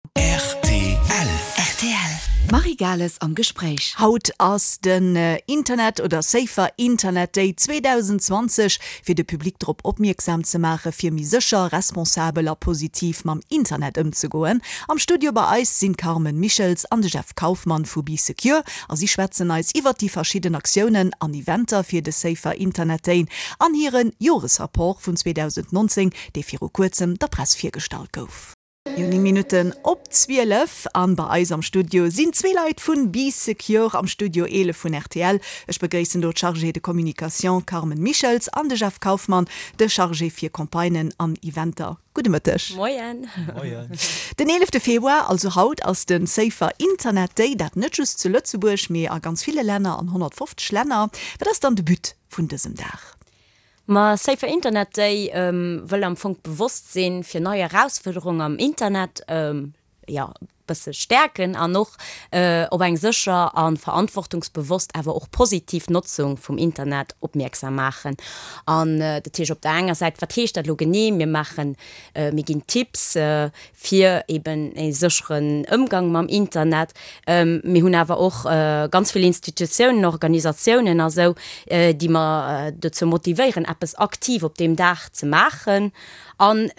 Rtl. Rtl. Marie Gales am Gespréich. Haut ass den Internet oder Safer Internet Day 2020, fir de Public drop opmierksam ze maache fir méi sécher, responsabel a positiv mam Internet ëmzegoen. Am Studio bei eis sinn d'Carmen Michels an de Jeff Kauffmann vu Bee Secure a si schwätzen eis iwwert déi verschidden Aktiounen an Eventer fir de Safer Internet Day an hire Joresrapport vun 2019, dee viru kuerzem der Press virgestallt gouf. Jo, 9 Minutten op 12 an bei eis am Studio sinn zwee Leit vun Bee Secure am Studio 11 vun rtl. Ech begréissen do d'Chargée de communication Carmen Michels an de Jeff Kauffmann, de Chargé fir Campagnen an Eventer. Gudde Mëtteg. Moien. Moien. Den 11 Februar, also haut, ass de Safer Internet Day, dat net just zu Lëtzebuerg, mee a ganz ville Länner, an 150 Länner. Wat ass dann de But vun dësem Dag? Ma Safer Internet Day wëll am Fong d'Bewosstsinn fir nei Erausfuerderungen am Internet, jo, bësse stäerken an och op eng sécher a verantwortungsbewosst, awer och positiv Notzung vum Internet opmierksam maachen. An dat heescht op der enger Säit, wat heescht dat elo genee? Mir maachen, mir ginn Tipps fir eben e sécheren Ëmgang mam Internet. Mir hunn awer och ganz vill Institutiounen, Organisatiounen a sou, déi mer dozou motivéieren, eppes aktiv op deem Dag ze maachen an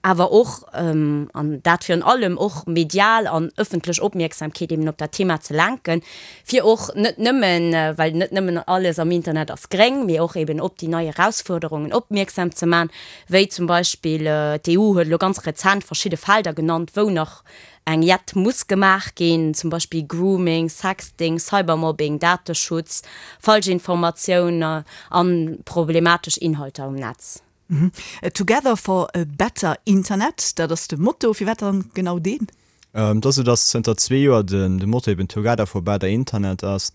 awer och, an dat virun allem, och medial an ëffentlech Opmierksamkeet eben op dat Thema ze lenken, fir och net nëmmen, well net nëmmen alles am Internet ass gréng, mee och eben op déi nei Erausfuerderungen opmierksam ze man, wéi zum Beispill d'EU huet elo ganz rezent verschidde Felder genannt, wou nach eng Jett muss gemaach ginn, zum Beispill Grooming, Sexting, Cybermobbing, Dateschutz, Falschinformatioun a problematesch Inhalter um Netz. Together for a better Internet, dat ass de Motto. Firwat dann genau deen? Et ass esou, datt zënter zwee Joer de Motto eben Together for better Internet ass.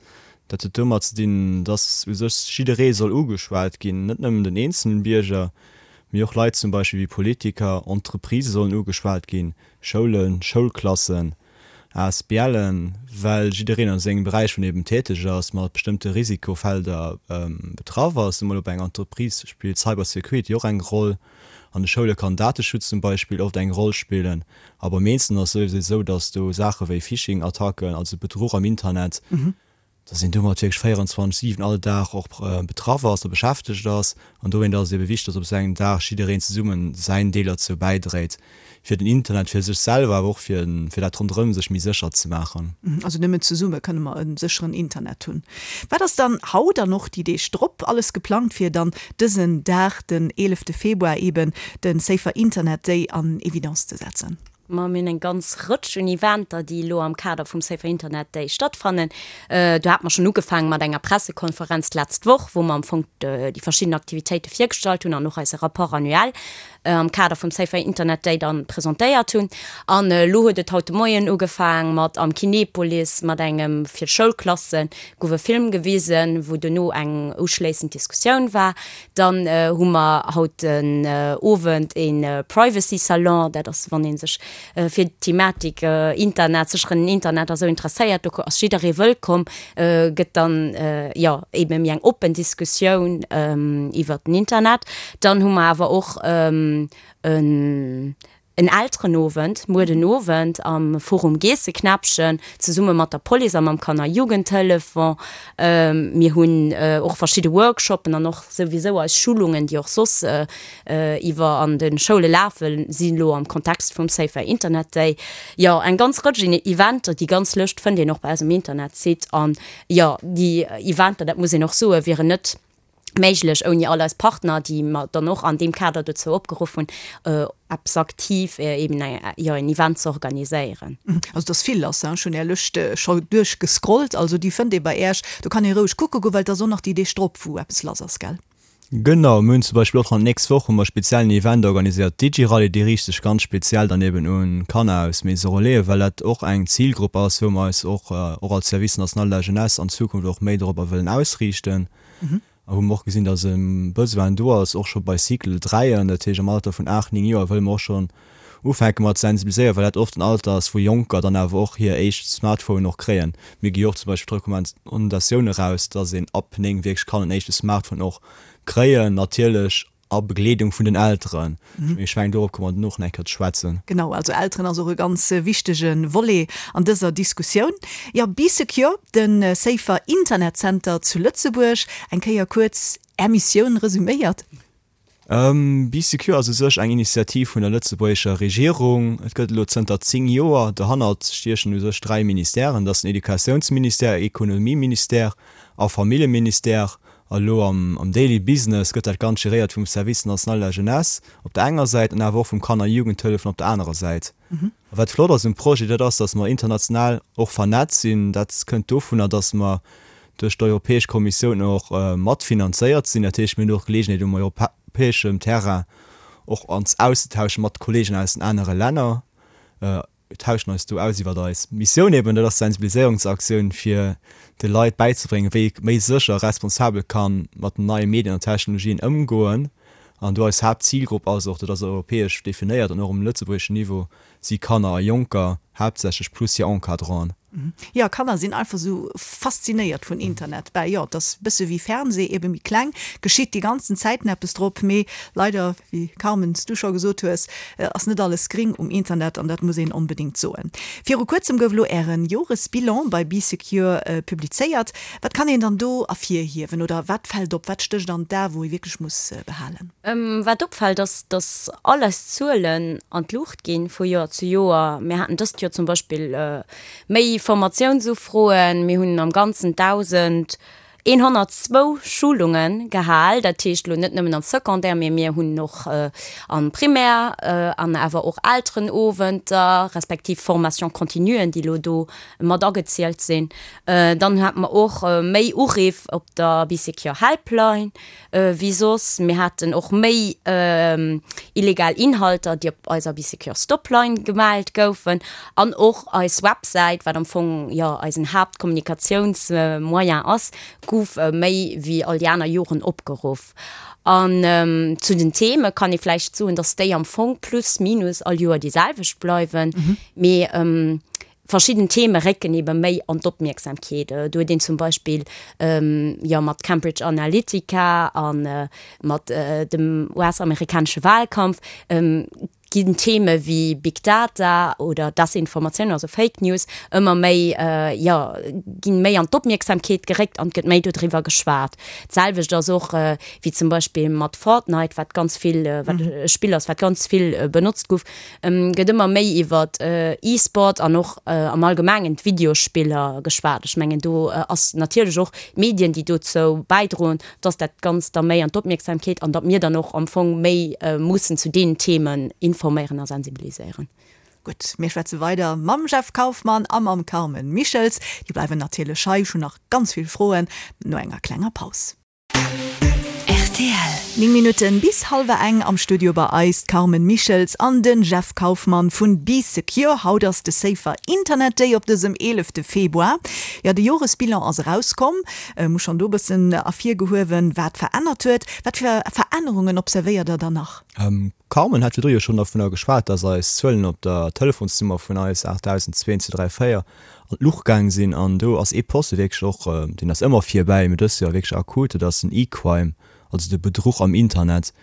Dat huet domat ze dinn, datt u sech jidderee soll ugeschwat ginn, net nëmmen den eenzelen Bierger, mee och Leit zum Beispill wéi Politiker, Entreprisë sollen ugeschwat ginn, Schoulen, Schoulklassen, ASBLen, well jiddereen a sengem Beräich, wou en eben täteg ass, mat bestëmmte Risikofelder betraff ass. Emol op enger Entreprise spillt Cybersecurity och eng Roll, an de Schoule kann Dateschutz zum Beispill oft eng Roll spillen. A beim Eenzelnen ass et souwisou esou, datt do Saache wéi Phishing-Attacken, also Bedruch am Internet, datt een domat wierklech 24, 7 all Dag och betraff ass a beschäftegt ass. An dowéint ass et ebe wichteg, datt op esou engem Dag jiddereen zesummen säin Deel derzou bäidréit, fir den Internet fir sech selwer, awer och fir fir dat ronderëm sech méi sécher ze maachen. Also nëmmen zesumme kënne mer e sécheren Internet hunn. Wat ass dann haut an och déi Deeg drop alles geplangt, fir dann dësen Dag, den 11 Februar eben, de Safer Internet Day an Evidence ze setzen? Ma mir hunn eng ganz Rëtsch un Eventer, déi elo am Kader vum Safer Internet Day stattfannen. Do hate mer schonn ugefaange mat enger Pressekonferenz d'letzt Woch, wou mer am Fong déi verschidden Aktivitéite virgestallt hunn an och eise Rapport annuel am Kader vum Safer Internet Day dann presentéiert hunn. An elo huet et haut de Moien ugefaang mat am Kinepolis mat engem fir d'Schoulklasse gouf e Film gewisen, wou duerno eng uschléissend Diskussioun war. Dann hu mer haut den Owend e Privacy Salon, dat ass wann ee sech fir d'Thematik Internet, sécheren Internet a sou interesséiert, do ass jidderee wëllkomm, gëtt dann jo ebe méi eng oppen Diskussioun iwwert den Internet. Dann hu mer awer och en En Elterenowend muer den Owend am Forum Geesseknäppchen zesumme mat der Police a mam Kanner-Jugendtelefon. Mir hunn och verschidde Workshoppen an och souwisou eis Schulungen, déi och soss iwwer an de Schoule lafen, si lo am Kontext vum Safer Internet Day. Jo, eng ganz Rëtsch Eventer. Déi ganz Lëscht fënnt een och bei eis um Internetsite. An jo, déi Eventer, dat muss een och soen, wieren net méiglech ouni all eis Partner, déi mer dann och an deem Kader dozou opgeruff hunn, eppes aktiv, eben jo en Event ze organiséieren. Also et ass vill lass, ech hunn Är Lëscht scho duerchgescrollt, also déi fënnt ee bei Äech, do kann ee roueg kucke goen, well et ass och nach déi Deeg drop, wou eppes lass ass, gell? Genau, mir hunn zum Beispill och d'nächst Woch hu mer e speziellen Event organiséiert, d'Digi-Rallye, déi riicht sech ganz speziell dann eben un Kanner aus Maison Relais, well dat och eng Zilgrupp ass, wou mer eis och och als Service national de la jeunesse an Zukunft och méi dorobber wëllen ausriichten. A wou mer och gesinn, dass e Besoin do ass, och scho bei Cycle 3, dat heescht am Alter vun 8, 9 Joer, wëlle mer och schonn ufänke mat sensibiliséieren, well dat oft en Alter ass, wou Jonker dann awer och hir éischt Smartphonen och kréien. Mir gi jo och zum Beispill d'Recommandatioun eraus, dass een ab 9 wierklech kann en éischte Smartphone och kréien, natierlech. A Begleedung vun den Elteren. Mee ech mengen, dorop komme mer duerno och nach eng Kéier ze schwätzen. Genau, also Elteren ass och e ganz wichtege Volet an dëser Diskussioun. Jo, Bee Secure, de Safer Internet Center zu Lëtzebuerg. Eng Kéier kuerz Är Missioun resuméiert. Bee Secure ass u sech eng Initiativ vun der lëtzebuergescher Regierung. Et gëtt elo zënter 10 Joer. Dohannert stiechen u sech 3 Ministèren, dat ass den Educatiounsministère, Ekonomieministère a Familljeministère. A lo am Daily Business gëtt dat Ganzt geréiert vum Service national de la jeunesse op der enger Säit an awer och vum Kanner a Jugendhëllefen op der anerer Säit. A wat flott ass um Projet, dat ass, datt mer international och vernetzt sinn. Dat kënnt dovunner, datt mer duerch d'Europäesch Kommissioun och matfinanzéiert sinn. Dat heescht, mir hunn och d'Geleegenheet um europäeschem Terrain och ons auszetauschen mat Kollegen aus den anere Länner. Mir tauschen eis do aus iwwert eis Missioun eben, dat ass d'Sensibiliséierungsaktioun fir de Leit bäizebréngen, wéi ee méi sécher a responsabel ka mat den neie Medien an Technologien ëmgoen. An do eis Haaptzilgrupp ass och, dat ass europäesch definéiert an och um lëtzebuergeschen Niveau, si Kanner a Jonker haaptsächlech plus hir Encadranten. Jo, Kanner sinn einfach sou faszinéiert vun Internet. Bah jo, et ass bësse wéi Fernseh, ebe méi kleng, geschitt déi ganzen Zäiten eppes drop, mee leider, wéi Carmen s du scho gesot hues, ass net alles gring um Internet an dat muss een onbedéngt soen. Viru kuerzem gouf elo ären Joresbilan bei Bee Secure publizéiert. Wat kann een dann do ervirhiewen oder wat fält op, wat stécht an d'A wou ee wierklech muss behalen? Wat opfält ass, datt all eis Zuelen an d'Luucht ginn vu Joer zu Joer. Mir haten dëst Joer zum Beispill méi Formatiounsufroen, mir hunn am Ganzen 1.102 Schulunge gehal, dat heescht elo net nëmmen am Secondaire, mee mir hunn och am Primaire an awer och Elterenowenter respektiv Formation continuen, déi elo do mat agezielt sinn. Dann hate mer och méi Uriff op der Bee Secure Helpline wéi soss. Mir haten och méi illegal Inhalter, déi op eiser Bee Secure Stopline gemellt goufen. An och eis Websäit, wat am Fong jo eisen Haaptkommunikatiounsmoyen ass, gouf méi wéi all déi aner Joren opgeruff. An zu den Theme kann ee vläicht soen, dass déi am Fong plus minus all Joer déi selwecht bleiwen. Mee Verschidden Theme récken ebe méi an d'Opmierksamkeet. Do huet een zum Beispill jo mat Cambridge Analytica a mat dem US-amerikanesche Wahlkampf ginn Theme wéi Big Data oder Desinformatioun, also Fake News, ëmmer méi, jo, ginn méi an d'Opmierksamkeet geréckt an et gëtt méi dodriwwer geschwat. D'selwecht ass och wéi zum Beispill mat Fortnite, wat ganz vill, wat e Spill ass, wat ganz vill benotzt gouf, Gëtt ëmmer méi iwwer E-Sport an och am Allgemengen d'Videospiller geschwat. Ech mengen, do ass natierlech och d'Medien, déi dozou bäidroen, dass dat Ganzt da méi an d'Opmierksamkeet an datt mir dann och am Fong méi mussen zu deenen Themen informéieren a sensibiliséieren. Gutt, mir schwätze weider mam Jeff Kauffmann a mam Carmen Michels. Déi bleiwen natierlech hei. Ech hunn nach ganz vill Froen no enger klenger Paus. Rtl. 9 Minutten bis hallwer eng, am Studio bei eis d'Carmen Michels an den Jeff Kauffmann vun Bee Secure. Haut ass de Safer Internet Day op dësem 11 Februar. Jo, de Joresbilan ass erauskomm. Hu schonn do bëssen ervirgehuewen, wat verännert huet. Wat fir Verännerungen observéiert der dann nach? Carmen hat virdru jo schonn dovunner geschwat, dass eis Zuelen op der Telefonsnummer vun eis 8002 234 an d'Luucht gaang sinn. An do ass ee Poste wierklech och, deen ass ëmmer virbäi, mee dëst Joer wierklech akut, dat ass den E-Crime, also de Bedruch am Internet.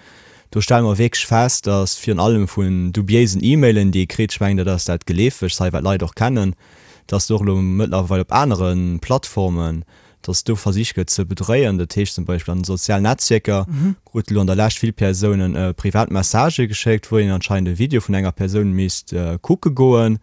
Do stelle mer wierklech fest, dass virun allem vun dubiéisen E-Mailen, déi ee kritt, ech mengen, dat ass dat Geleefegst hei, wat d'Leit och kennen, dass do och elo mëttlerweil op anere Plattformen dass do versicht gëtt ze bedréien. Dat heescht zum Beispill an den sozialen Netzwierker krute lo an der Lescht vill Persounen privat Messagë geschéckt, wou een anscheinend e Video vun enger Persoun misst kucke goen.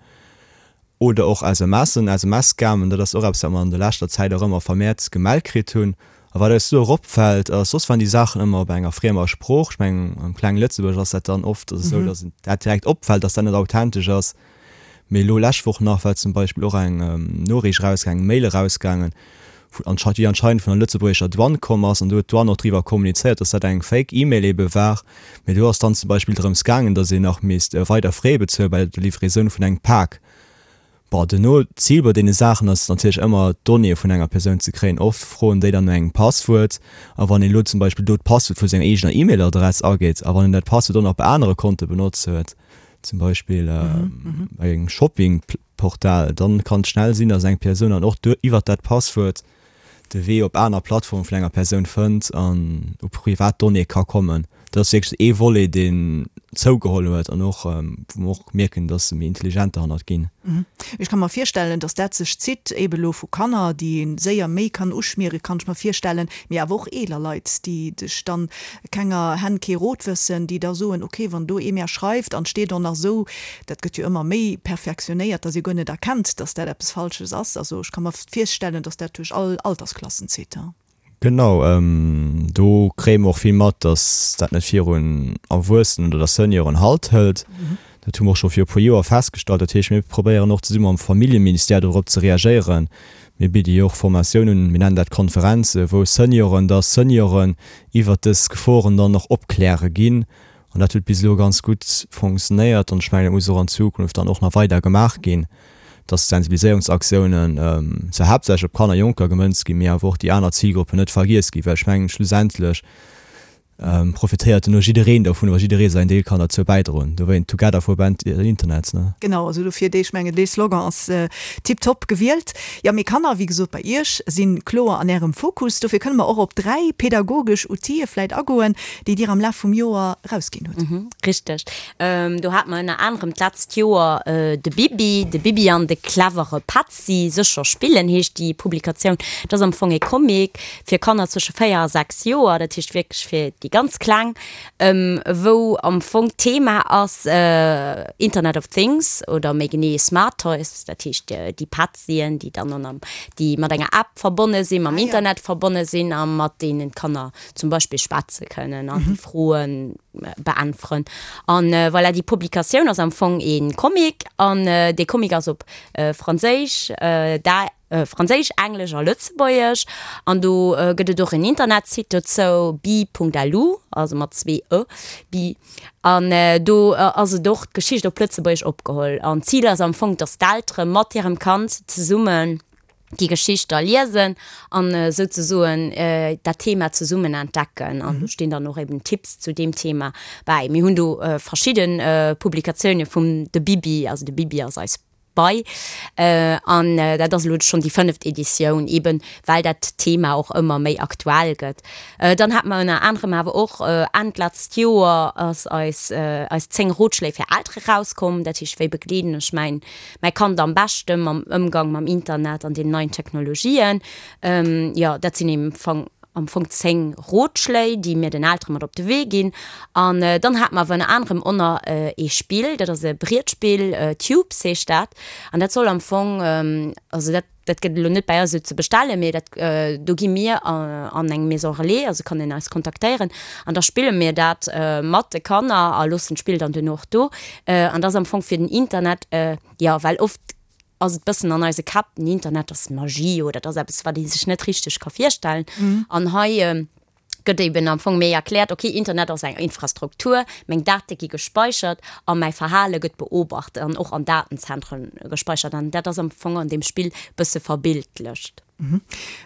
Oder och SMSen, SMS-Scammen, dat ass och eppes, wat mer an der leschter Zäit och ëmmer vermehrt gemellt kritt hunn. A wat eis do och opfält, ass, soss waren déi Saachen ëmmer op enger friemer Sprooch. Ech mengen, am klenge Lëtzebuerg ass dat dann oft esou, dass dat direkt opfält, dass dat net authentesch ass. Mee elo lescht Woch nach war zum Beispill och eng Noriicht erausgaangen, eng Mail erausgaangen, déi anscheinend vun der lëtzebuergescher Douane komm ass. An do huet d'Douane och driwwer kommunizéiert, dass dat eng Fake E-Mail ebe war. Mee do ass dann zum Beispill drëms gaangen, dass een nach misst weider Frais bezuele bei der Livraison vun engem Pak. Bon, duerno, d'Zil bei deene Saachen ass natierlech ëmmer, d'Donnéeë vun enger Persoun ze kréien. Oft froen déi dann no engem Passwuert. A wann een elo zum Beispill do d'Passwuert vu senger eegener E-Mail-Adress ageet a wann en dat Passwuert och nach bei anere Konte benotzt huet, zum Beispill bei engem Shoppingportal, dann kann et schnell sinn, dass eng Persoun dann och iwwert dat Passwuert de Wee op aner Plattforme vun enger Persoun fënnt an u privat Donnéeë ka kommen. Dat ass wierklech ee Volet, deen zougeholl huet an och, wou mer och mierken, dass se méi intelligent derhannert ginn. Ech ka mer virstellen, dass dat sech zitt, ebe lo vu Kanner, déi ee séier méi kann uschmieren, kann ech mer virstellen, mee awer och eeler Leit, déi sech dann kenger Hänn kee Rot wëssen, déi da soen, ok, wann do ee mär schreift an 't steet och nach esou, dat gëtt jo ëmmer méi perfektionéiert, dass ee guer net erkennt, dass dat eppes Falsches ass. Also ech ka mer virstellen, dass dat duerch all Altersklassen zitt. Genau, do kréie mer och vill mat, dass dat net virun Erwuessenen oder Senioren Halt hëlt. Dat hu mer och scho viru puer Joer festgestallt. Dat heescht, mir probéieren och zesumme mam Familljeministère dorop ze reagéieren. Mir bidde jo och Formatiounen un, mir nennen dat Konferenzen, wou Senioren da Senioren iwwert dës Geforen dann och opkläre ginn. An dat huet bis elo ganz gutt fonctionnéiert an ech mengen, dat muss och an Zukunft dann och nach weider gemaach ginn, dass d'Sensibiliséierungsaktiounen zwar haaptsächlech op Kanner a Jonker gemënzt ginn, mee awer och déi aner Zilgruppen net vergiess ginn, well ech mengen, schlussendlech profitéiert duerno jiddereen dovun, wa jidderee säin Deel kann derzou bäidroen. Dowéint Together for Better Internet, ne? Genau, also dofir dee, ech mengen, dee Slogan ass tiptop gewielt. Jo, mee Kanner, wéi gesot, bei Iech si kloer an Ärem Fokus. Dofir kënne mer och op 3 pedagogesch Outile vläit agoen, déi Dir am Laf vum Joer erausginn hutt. Richteg. Do hate mer ënner anerem d'letzt Joer de Bibi, de Bibi an de clevere Petzi, Sécher spillen heescht déi Publikatioun. Dat ass am Fong ee Comic fir Kanner zwësche 4 a 6 Joer, dat heescht wierklech fir déi ganz Kleng, wou am Fong d'Thema ass Internet of Things oder méi genee Smart Toys, dat heescht déi Petzien, déi dann an déi mat enger App verbonne sinn, mam Internet verbonne sinn a mat deenen d'Kanner zum Beispill schwätze kënnen an déi Froe beäntweren. An voilà, déi Publikatioun ass am Fong ee Comic an dee Comic ass op Franséisch, Franséisch, Englesch a Lëtzebuergesch. An do gëtt et och en Internetsite dozou, bi.lu, also mat zwee e, bi. An do ass et och d'Geschicht op Lëtzebuergesch opgeholl. An d'Zil ass am Fong, dass d'Eltere mat hirem Kand zesummen déi Geschicht da liesen an souzesoen dat Thema zesummen entdecken. An do stinn dann och eben Tipps zu deem Thema bäi. Mir hunn do verschidde Publikatioune vum de Bibi, also de Bibi ass eis Bei. An dat ass elo schonn déi fënneft Editioun, eben well dat Thema och ëmmer méi aktuell gëtt. Dann hate mer ënner anerem awer och Enn d'letzt Joer ass eis eis 10 Rotschléi fir Eltere rauskomm. Dat heescht, wéi begleeden ech mäin mäi Kand am beschte mam Ëmgang mam Internet an den neien Technologien. Jo, dat sinn am Fong, am Fong 10 Rotschléi, déi mir den Eltere mat op de Wee ginn. An dann hate mer awer ënner anerem och nach ee Spill, dat ass e Brietspill, Tubes heescht dat. An dat soll am Fong, also dat, dat gëtt elo net bäi eis esou ze bestellen, mee dat, do gi mir an eng Maison Relais, also kann een eis kontaktéieren an da spille mir dat mat de Kanner a loossen d'Spill dann duerno och do. An dat ass am Fong fir den Internet, jo, well oft ass et bëssen an eise Käpp, den Internet ass Magie oder dat ass eppes, wat ee sech net richteg ka virstellen. An hei gëtt eben am Fong méi erkläert, ok, Internet ass eng Infrastruktur, meng Date gi gespeichert a mäi Verhale gëtt beobacht an och an Datenzentren gespeichert. An dat ass am Fong an deem Spill bësse verbildlecht.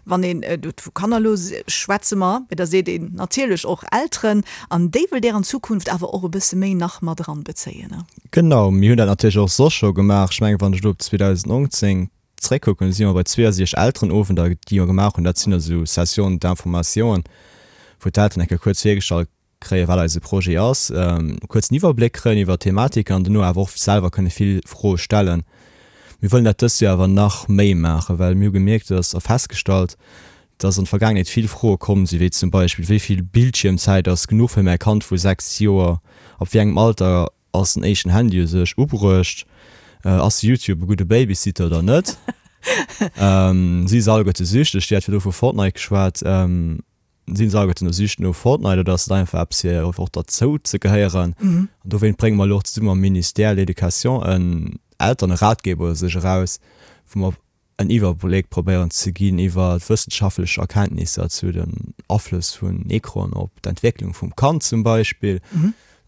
Wann een do vu Kanner, elo schwätze mer, mee da seet een natierlech och Elteren, an déi wëllt Där an Zukunft awer och e bësse méi nach mat eranbezéien, ne? Genau, mir hunn dat natierlech och soss scho gemaach. Ech mengen, wann ech elo op 2019 Zréckkucken, si mer bei 62 Elterenowender, déi mer gemaach hunn. Dat sinn esou Sessions d'information, wou d'Elteren eng Kéier kuerz virgestallt kréien, wat eise Projet ass, e kuerzen Iwwerbléck kréien iwwer d'Thematiken an dono awer och selwer kënne vill Froe stellen. Mir wëllen dat dëst Joer awer nach méi maachen, well mir hu gemierkt, dass a festgestallt, dass an der Vergaangenheet vill Froe komm sinn, wéi zum Beispill, Wéi vill Bildschiermzäit ass genuch fir mäi Kand vu 6 Joer? Ab wéi engem Alter Ass den éischten Handy u sech ubruecht? Ass YouTube e gudde Babysitter oder net? Si se alleguerte süchteg? Dir hat virdru vu Fortnite geschwat. Sinn se alleguerten elo süchteg no Fortnite oder ass et einfach eppes fir och derzou ze gehéieren? An dowéint brénge mer elo och zesumme mam Ministère de l'Education en Elternratgeber u sech eraus, wou mer en Iwwerbléck probéieren ze ginn iwwer wëssenschaftlech Erkenntnisser zu den Aflëss vun Ecranen op d'Entwécklung vum Kand zum Beispill,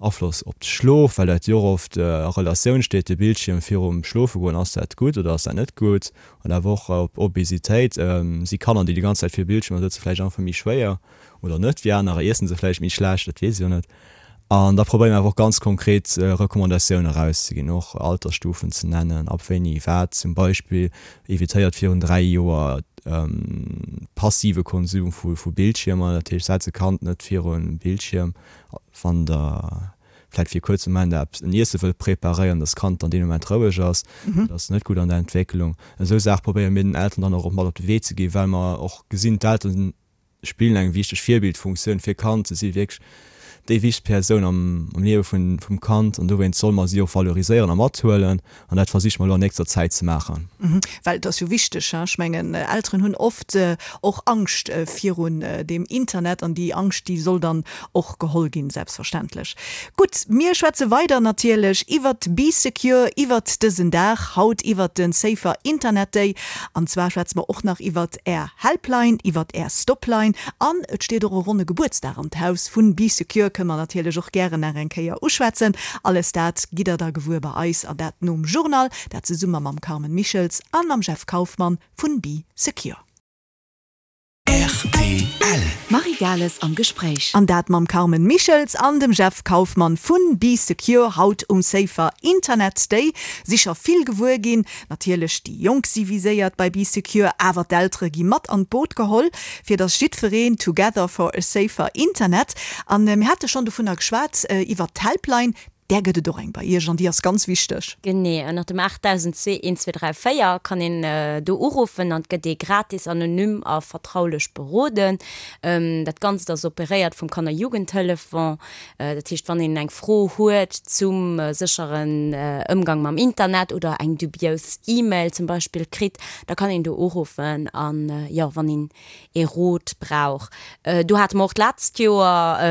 Afloss op de Schlof, well dat jo och oft a Relatioun steet, de Bildschierm virum Schlofegoen, ass dat gutt oder ass dat net gutt, an awer och op Obesitéit, si Kanner, déi déi ganz Zäit vir Bildschiermer sëtzen, vläicht einfach méi schwéier oder net wéi anerer, iessen se vläicht méi schlecht, dat weess ech jo net. An da probéiere mer awer och ganz konkret Recommandatioune erauszeginn, och Altersstufen ze nennen, ab wéini wat zum Beispill evitéiert virun 3 Joer passive Konsum vu Bildschiermer, dat heescht setz e Kand net virun Bildschierm, wann der vläit fir e kuerze Moment eppes, en Iesse wëllt preparéieren, dass d'Kand dann deen Moment roueg ass, dat ass net gutt an der Entwécklung. Esou Saache probéiere mir den Elteren dann och mat op de Wee ze ginn, well mer och gesinn, d'Elteren spillen eng wichteg Virbildfunktioun fir Kand. Se si wierklech déi wichtegst Persoun am Liewe vum Kand an dowéinst solle mer si och valoriséieren a mathuelen an dat versiche mer elo an nächster Zäit ze maachen. Well et ass jo wichteg, ech mengen, Elteren hunn oft och Angscht virun deem Internet an déi Angscht, déi soll dann och geholl ginn, selbstverständlech. Gutt, mir schwätze weider natierlech iwwert Bee Secure, iwwert dësen Dag haut, iwwert de Safer Internet Day. An zwar schwätze mer och nach iwwert Är Helpline, iwwert Är Stopline an et steet och e ronne Gebuertsdag an d'Haus vun Bee Secure, kënne mer natierlech och gären nach eng Kéier uschwätzen. Alles dat gitt der da gewuer bei eis an dat nom Journal, dat zesumme mam Carmen Michels a mam Jeff Kauffmann vun Bee Secure. Rtl. D'Marie Gales am Gespréich. An dat mam Carmen Michels an dem Jeff Kauffmann vun Bee Secure haut um Safer Internet Day. Si scho vill gewuer ginn. Natierlech déi Jonk si viséiert bei Bee Secure, awer d'Eltere gi mat an d'Boot geholl, fir dass jiddwereen Together for a safer Internet. An mir hate schonn dovunner geschwat, iwwert d'Helpline. Där gëtt et och eng bei Iech an déi ass ganz wichteg. Genee, ënnert dem 8002 1234 kann een do uruffen an et gëtt ee gratis, anonym a vertraulech beroden. Dat Ganzt ass operéiert vum Kanner-Jugendtelefon. Dat heescht, wann een eng Fro huet zum sécheren Ëmgang mam Internet oder eng dubious E-Mail zum Beispill kritt, da kann een do uruffen an, jo, wann een ee Rot brauch. Do hate mer och d'letzt Joer,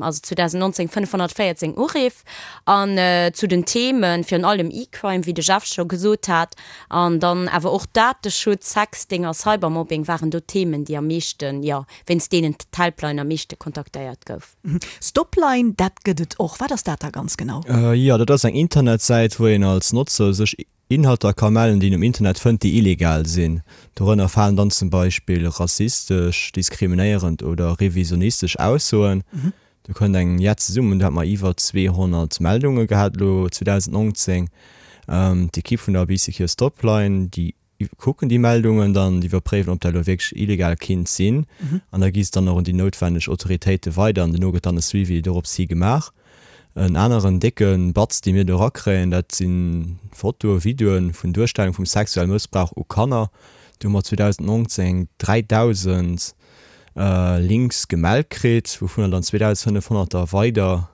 also 2019, 514 Uriff. An zu den Themen, virun allem E-Crime, wéi de Jeff scho gesot hat, an dann awer och Dateschutz, Sexting a Cybermobbing waren do d'Themen, déi am meeschten, jo, wéinst deenen d'Helpline am meeschte kontaktéiert gouf. Stopline, dat gëtt et och. Wat ass dat da ganz genau? Jo, dat ass eng Internetsäit, wou een als Notzer sech Inhalter ka mellen, déi een um Internet fënnt, déi illegal sinn. Dorënner falen dann zum Beispill rassistesch, diskriminéierend oder revisionistesch Aussoen. Do kënnt eng jett zesummen. Do hat mer iwwer 200 Meldunge gehat elo 2019. D'Ekipp vun der Bee Secure Stopline, déi kucken déi Meldungen dann, déi iwwerpréiwen, ob dat elo wierklech illegal kinnt sinn. An da gi se dann och un déi noutwenneg Autoritéite weider an duerno gëtt dann e Suivi dorops hi gemaach. En aneren décke Batz, dee mir do erakréien, dat si Fotoe, Videoe vun Duerstellung vum sexuelle Mëssbrauch u Kanner. Do hu mer 2019 3.000 Links gemellt kritt, wouvunner dann 2.500 der weider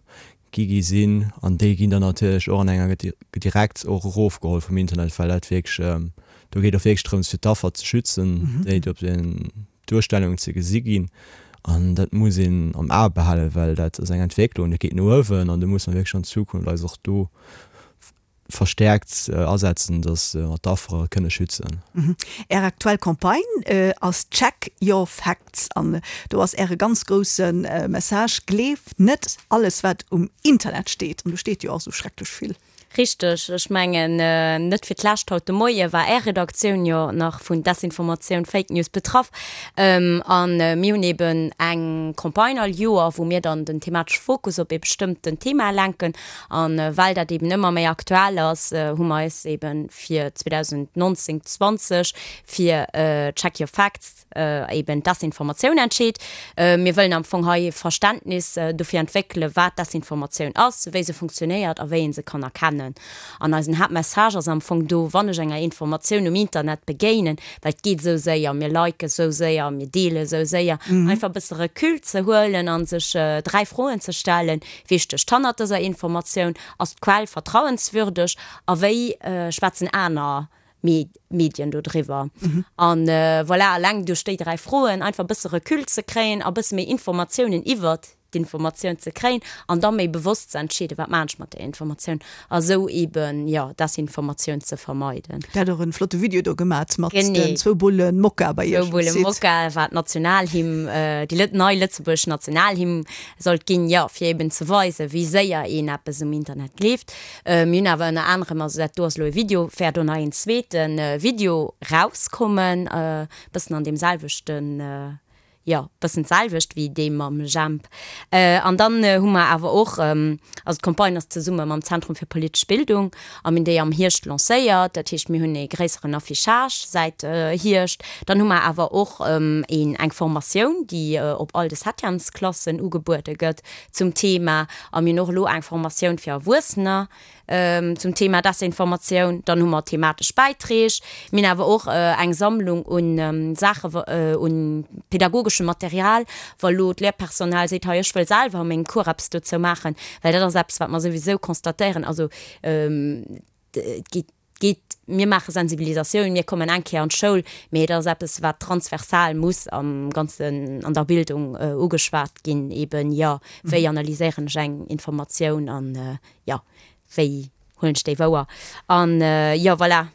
gi gi sinn. An déi ginn dann natierlech och an enger direkt och erofgeholl vum Internet, well dat wierklech, do geet och wierklech drëms, fir d'Affer ze schützen, déi op den Duerstellungen ze gesi ginn an dat muss een am A behalen, well dat ass eng Entwécklung, dat geet no uewen an do muss mer wierklech an Zukunft eis och do verstäerkt asetzen, datt mer d'Affere kënne schützen. Är aktuell Campagne ass Check your facts an do ass Äre ganz grousse Message, Gleef net alles wat um Internet steet. An do steet jo och esou schrecklech vill. Richteg. Ech mengen, net fir d'lescht haut de Moie war Är Redaktioun jo nach vun Desinformatioun, Fake News betraff. A mir hunn eeben eng Campagne all Joer, wou mir dann den thematesche Fokus op ee bestëmmten Thema lenken. A well dat eeben ëmmer méi aktuell ass, hu mer eis eebe fir 2019, 20 fir Check your facts, eben Desinformatioun entscheet. Mir wëllen am Fong hei e Verständnis dofir entwéckelen, wat Desinformatioun ass, wéi se funktionéiert a wéi ee se kann erkennen. An eisen Haaptmessage ass am Fong do, wann ech enger Informatioun um Internet begéinen, well et geet esou séier, mir liken esou séier, mir deele esou séier, einfach e bësse Recul ze huelen a sech 3 Froen ze stellen, Wie stécht hannert dëser Informatioun? Ass d'Quell vertrauenswürdeg? A wéi schwätzen aner Medien do driwwer. An voilà, eleng duerch déi 3 Froen einfach e bësse Recul ze kréien a bësse méi Informatiounen iwwert d'Informatioun ze kréien an da méi bewosst ze entscheeden, wat maan ech mat där Informatioun a sou eben, jo, Desinformatioun ze vermeiden. Der hat och en flotte Video do gemat mat den zwou Bullen Mokka bei iech um Site. Zwou Bullen Mokka, wat d'Nationalhymn, déi nei lëtzebuergesch Nationalhymn sollt ginn, jo, fir eben ze weisen, wéi séier een eppes um Internet gleeft. Mir hunn awer ënner anerem, also dat do ass elo e Video, wäert och nach een zweete Video rauskommen, e bëssen an deem selwechten, Jo, bëssen d'selwecht wéi dee mam Jemp. An dann hu mer awer och, also d'Campagne ass zesumme mam Zentrum fir politesch Bildung a mir hunn déi am Hierscht lancéiert. Dat heescht, mir hunn ee gréisseren Affichage säit Hierscht. Dann hu mer awer och een, eng Formatioun, déi op all de Septièmesklassen ugebuede gëtt zum Thema. A mir hunn och elo eng Formatioun fir Erwuessener, Zum Thema Desinformatioun, dann hu mer thematesch Bäiträg. Mir hunn awer och eng Sammlung un Saache, un pedagogeschem Material, wa lo d'Lehrpersonal seet, hei ech wëll selwer a mengem Cours eppes dozou maachen, well dat ass eppes, wat mer souwisou constatéieren, also et geet, geet, mir maache Sensibilisatioun, mir kommen eng Kéier an d'Schoul, mee et ass eppes, wat transversal muss am Ganzen an der Bildung ugeschwat ginn, eben, jo, wéi analyséieren ech eng Informatioun an jo, wéi huelen ech déi wouer? An jo, voilà,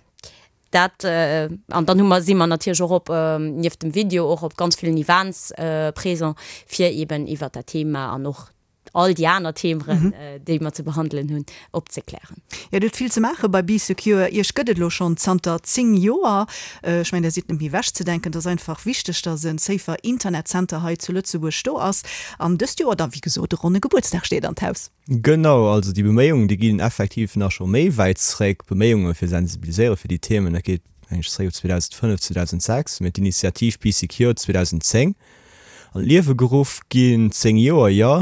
dat. An dann hu mer, si mer natierlech och op, nieft dem Video, och op ganz villen Events présent, fir eeben iwwert dat Thema an och all déi aner Themeren, déi mer ze behandelen hunn, opzeklären. Jo, Dir hutt vill ze maache bei Bee Secure. Iech gëtt et elo schonn zanter 10 Joer. Ech mengen, Der sidd net méi ewechzedenken. Et ass einfach wichteg, dass e safer Internet Center hei zu Lëtzebuerg do ass. An dëst Joer da, wéi gesot, e ronne Gebuertsdag steet an d'Haus. Genau, also déi Beméiungen, déi ginn effektiv nach scho méi wäit zréck, Beméiunge fir sensibiliséiere fir déi Themen, dat geet meng ech zréck op 2005, 2006, mä d'Initiativ Bee Secure 2010 an d'Liewe geruff ginn, 10 Joer, jo.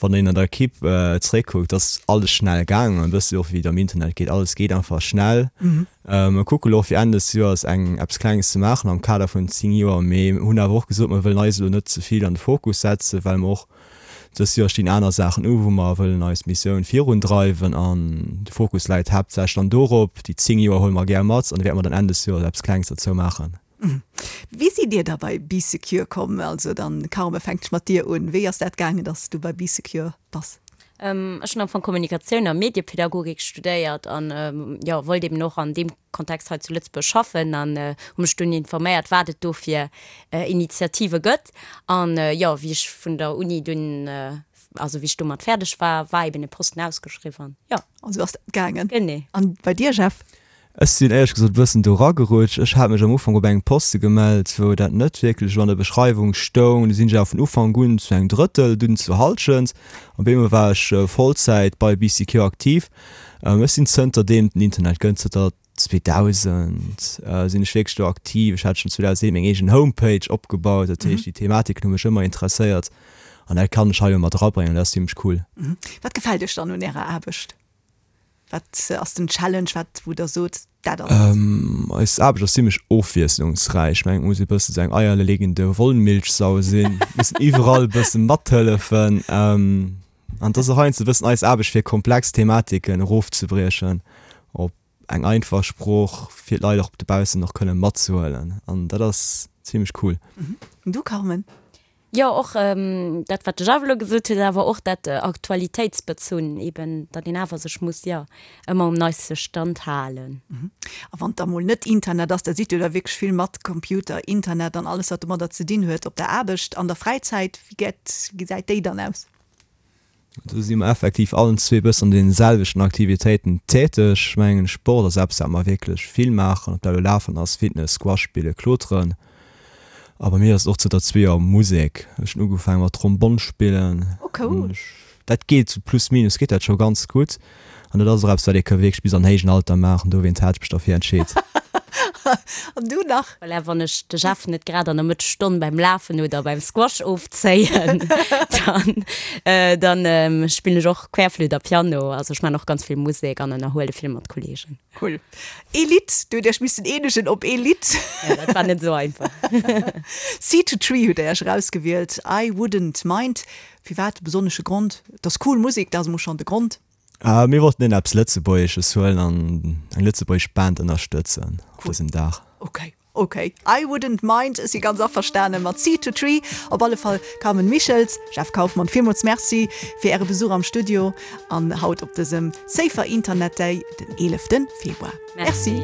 Wann een an der Equipe zréckkuckt, ass alles schnell gaangen, e bëssi och wéi et am Internet geet, alles geet einfach schnell. Mer kucke lo och fir Enn des Joers eng eppes Klenges ze maachen am Kader vun 10 Joer, mee hunn awer och gesot, mer wëllen eis elo net ze vill an de Fokus setzen, well mer och Dëst Joer stinn aner Saachen u wou mer wëllen eis Missioun virun dreiwen an de Fokus läit haaptsächlech dann dorop. Déi 10 Joer huele mer gär mat an da wäerte mer dann Enn des Joers eppes Klenges derzou maachen. Wéi sidd Dir da bei Bee Secure komm? Also dann Carme, fänkt ech mat dir un. Wéi ass dat gaangen, dass du bei Bee Secure bass? Ech hunn am Fong Kommunikatioun a Mediepädagogik studéiert an jo, wollt eben och an deem Kontext hei zu Lëtzebuerg schaffen an hu mech dunn informéiert, wat et do fir Initiative gëtt. An jo, wéi ech vun der Uni dunn, also wéi ech domat fäerdeg war, war eben e Posten ausgeschriwwen an jo. An sou ass dat gaangen. Genee. An bei dir, Jeff? Ech sinn éierlech gesot e bëssen do eragerutscht. Ech hat mech am Ufank op engem Poste gemellt, wou dat net wierklech esou an der Beschreiwung stoung. Du sinn ech awer vun Ufank un zu engem Drëttel, dunn zur Hallschent. Op eemol war ech Vollzäit bei BCQ aktiv. Ech sinn zënterdeem et den Internet gëtt, zënter 2000, sinn ech wierklech do aktiv. Ech hat schonn 2007 meng eegen Homepage opgebaut. Dat heescht, déi Thematiken hu mech ëmmer interesséiert an dat kann ech hei elo mat erabréngen an dat ass zimmlech cool. Wat gefält Iech dann un Ärer Aarbecht? Wat ass den Challenge, wat wou der sot, dat ass et? Eis Aarbecht ass zimmlech ofwiesslungsräich. Ech mengen, et muss ee bësse sou eng eierlegende Wollmilchsau sinn, mussen iwwerall e bësse mathëllefen. An et ass och heiansdo e bëssen eis Aarbecht fir komplex Thematiken erofzebriechen op eng einfach Sprooch, fir d'Leit och dobaussen och kënne matzehuelen. An dat ass zimmlech cool. An du Carmen? Jo, och dat, wat de Jeff elo gesot huet, awer och dat Aktualitéitsbezunn eben, datt een awer sech muss, jo, ëmmer um neiste Stand halen. A wann et da mol net Internet ass, da sidd Dir da wierklech vill mat Computer, Internet an alles, wat domadder ze dinn huet op der Aarbecht. An der Fräizäit, wéi gesäit déi dann aus? Do si mer effektiv allen zwee bëssen an deene selwechten Aktivitéiten täteg. Ech mengen, Sport ass eppes, wat mer wierklech vill maachen, ob dat elo Lafen ass, Fitness, Squash spillen, Kloteren. A bei mir ass et och zënter zwee Joer Musek. Ech hunn ugefaange mat Trombonn spillen. Oh cool! Dat geet sou plus minus geet dat scho ganz gutt. An dat ass och eppes, wat ee ka wierklech bis an héijen Alter maachen. Dowéinst hat ech mech derfir entscheet. An du nach? Voilà, wann ech de Jeff net grad an der Mëttesstonn beim Lafen oder beim Squash ofzéien, dann, dann spillen ech och Querflütt a Piano. Also ech man och ganz vill Musek an ënnerhuele vill mat Kollegen. Cool. Ee Lidd, du hutt Iech missen eenegen op ee Lidd. Ja, dat war net esou einfach. Seed to Tree hutt Der Iech erausgewielt, I Wouldn't Mind. Firwat? E besonnesche Grond? Et ass cool Musek, dat ass emol schonn de Grond. Mir wollten een eppes Lëtzebuergesches huelen an eng lëtzebuergesch Band ënnerstëtzen op dësem Dag. Ok, ok, I wouldn't mind, ech si ganz averstane mat Seed to Tree. Op alle Fall Carmen Michels, Jeff Kauffmann, villmools Merci fir Äre Besuch am Studio an haut op dësem Safer Internet Day, den 11 Februar. Merci.